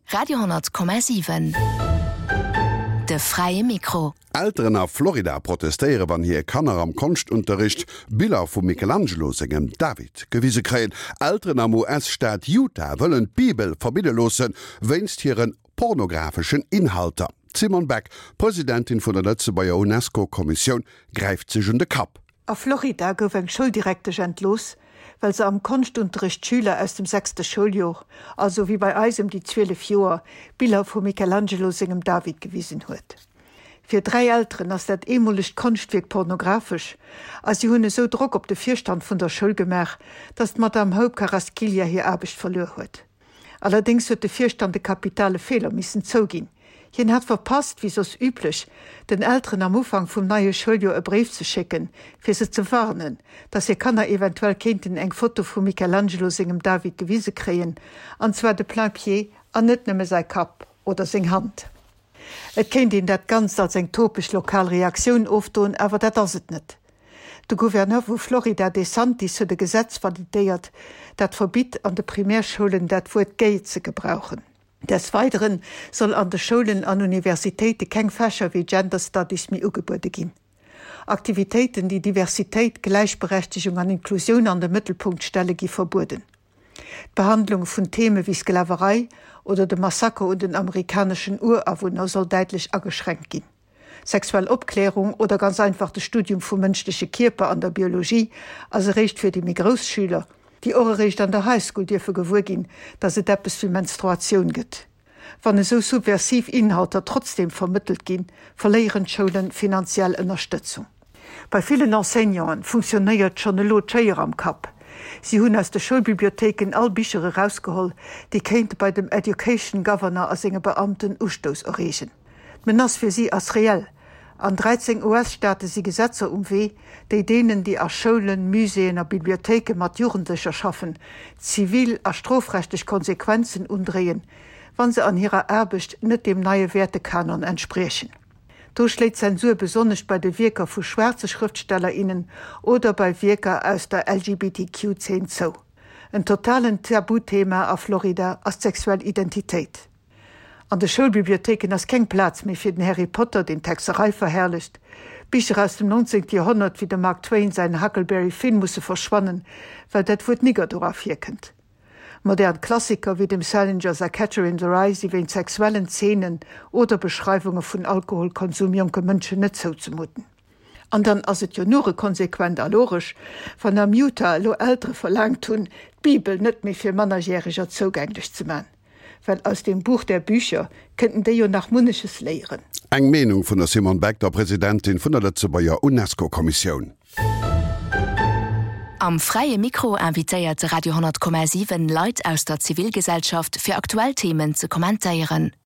Radio,7 De fräie Mikro. Elteren a Florida protestéiere wann hir Kanner am Konschtunterricht Biller vum Michelangelo sengem David gewise kréien. Elteren am US-Staat Utah wëllen d'Bibel verbidde loosse wéinst hire pornographeschen Inhalter. D'Simone Beck, Presidentin vun der Lëtzebuerger UNESCO-Kommissioun, gräift sech un de Kapp. A Florida gouf eng Schouldirektesch entlooss, well se am Konschtunterrecht Schüler aus dem sechste Schouljor, also wéi bei eis ëm déi 12 Joer, Biller vum Michelangelo sengem David gewisen huet. Fir 3 Elteren ass dat eemolegt Konschtwierk pornographesch a si hunn esou Drock op de Virstand vun der Schoul gemaach, datt d'Madame Hope Carrasquilla hir Aarbecht verluer huet. Allerdéngs huet de Virstand e kapitale Feeler missen zouginn. Hien hat verpasst, wéi soss üblech, den Elteren am Ufank vum neie Schouljoer e Bréif ze schécken, fir se ze warnen, dass hir Kanner eventuell kéinten eng Foto vum Michelangelo sengem David gewise kréien, an zwar de plain-pied an net nëmme säi Kapp oder seng Hand. Et kéint een dat Ganzt als eng topeg lokal Reaktioun ofdoen, awer dat ass et net. De Gouverneur vu Florida DeSantis huet e Gesetz validéiert, dat verbitt, an de Primärschoulen dat Wuert gay ze gebrauchen. Des Weidere soll an de Schoulen an Universitéite keng Fächer wéi Gender Studies méi ugebuede ginn. Aktivitéiten, déi Diversitéit, Gläichberechtegung an Inklusioun an de Mëttelpunkt stelle gi verbueden. D'Behandlung vun Theme wéi Sklaverei oder de Massaker un den amerikaneschen Urawunner soll däitlech ageschränkt ginn. Sexuell Opklärung oder ganz einfach de Studium vum mënschleche Kierper an der Biologie ass eréischt fir déi méi grouss Schüler, déi och eréischt an der High School dierfe gewuer ginn, dass et eppes wéi Menstruatioun gëtt. Wann esou subversiv Inhalter trotzdeem vermëttelt ginn, verléieren d'Schoulen finanziell Ënnerstëtzung. Bei villen Enseignanten funktionéiert schonn elo d'Schéier am Kapp. Si hunn aus de Schoulbibliothéiken all Bicher erausgeholl, déi kéinte bei dem Education Governor a senge Beamten Ustouss erreegen. D'Menace fir si ass reell. An 13 US-Staate si Gesetzer um Wee, déi deenen, déi a Schoulen, Muséeën a Bibliothéike mat Jugendlecher schaffen, zivil a strofrechtlech Konsequenzen undréien, wa se an hirer Aarbecht net deem neie Wäertekanon entspriechen. Do schléit d'Zensur besonnesch bei de Wierker vu schwaarze Schrëftsteller, innen oder bei Wierker aus der LGBTQ-Zeen zou. En totalen Tabuthema a Florida ass d'sexuell Identitéit. An de Schoulbibliothéiken ass keng Plaz méi fir den Harry Potter, deen d'Hexerei verherrlecht. Bicher aus dem 19. Joerhonnert wéi dem Mark Twain säin Huckleberry Finn musse verschwannen, well dat Wuert Nigger dora virkënnt. Modern Klassiker wéi dem Salinger säi Catcher in the Rye si wéint sexuellen Zeenen oder Beschreiwunge vun Alkoholkonsum jonke Mënschen net zouzemuten. An dann ass et jo nure konsequent a logesch, wann am Utah elo Eltere verlaangt hunn, d'Bibel net méi fir Mannerjäreger zougänglech ze man. Well aus dem Buch der Bücher kënnten déi jo nach munneches léieren. Eng Meenung vun der Simone Beck, der Presidentin vun der Lëtzebuerger UNESCO-Kommissioun. Am Fräie Mikro invitéiert de Radio 10,7 Leit aus der Zivilgesellschaft fir aktuell Themen ze kommentéieren.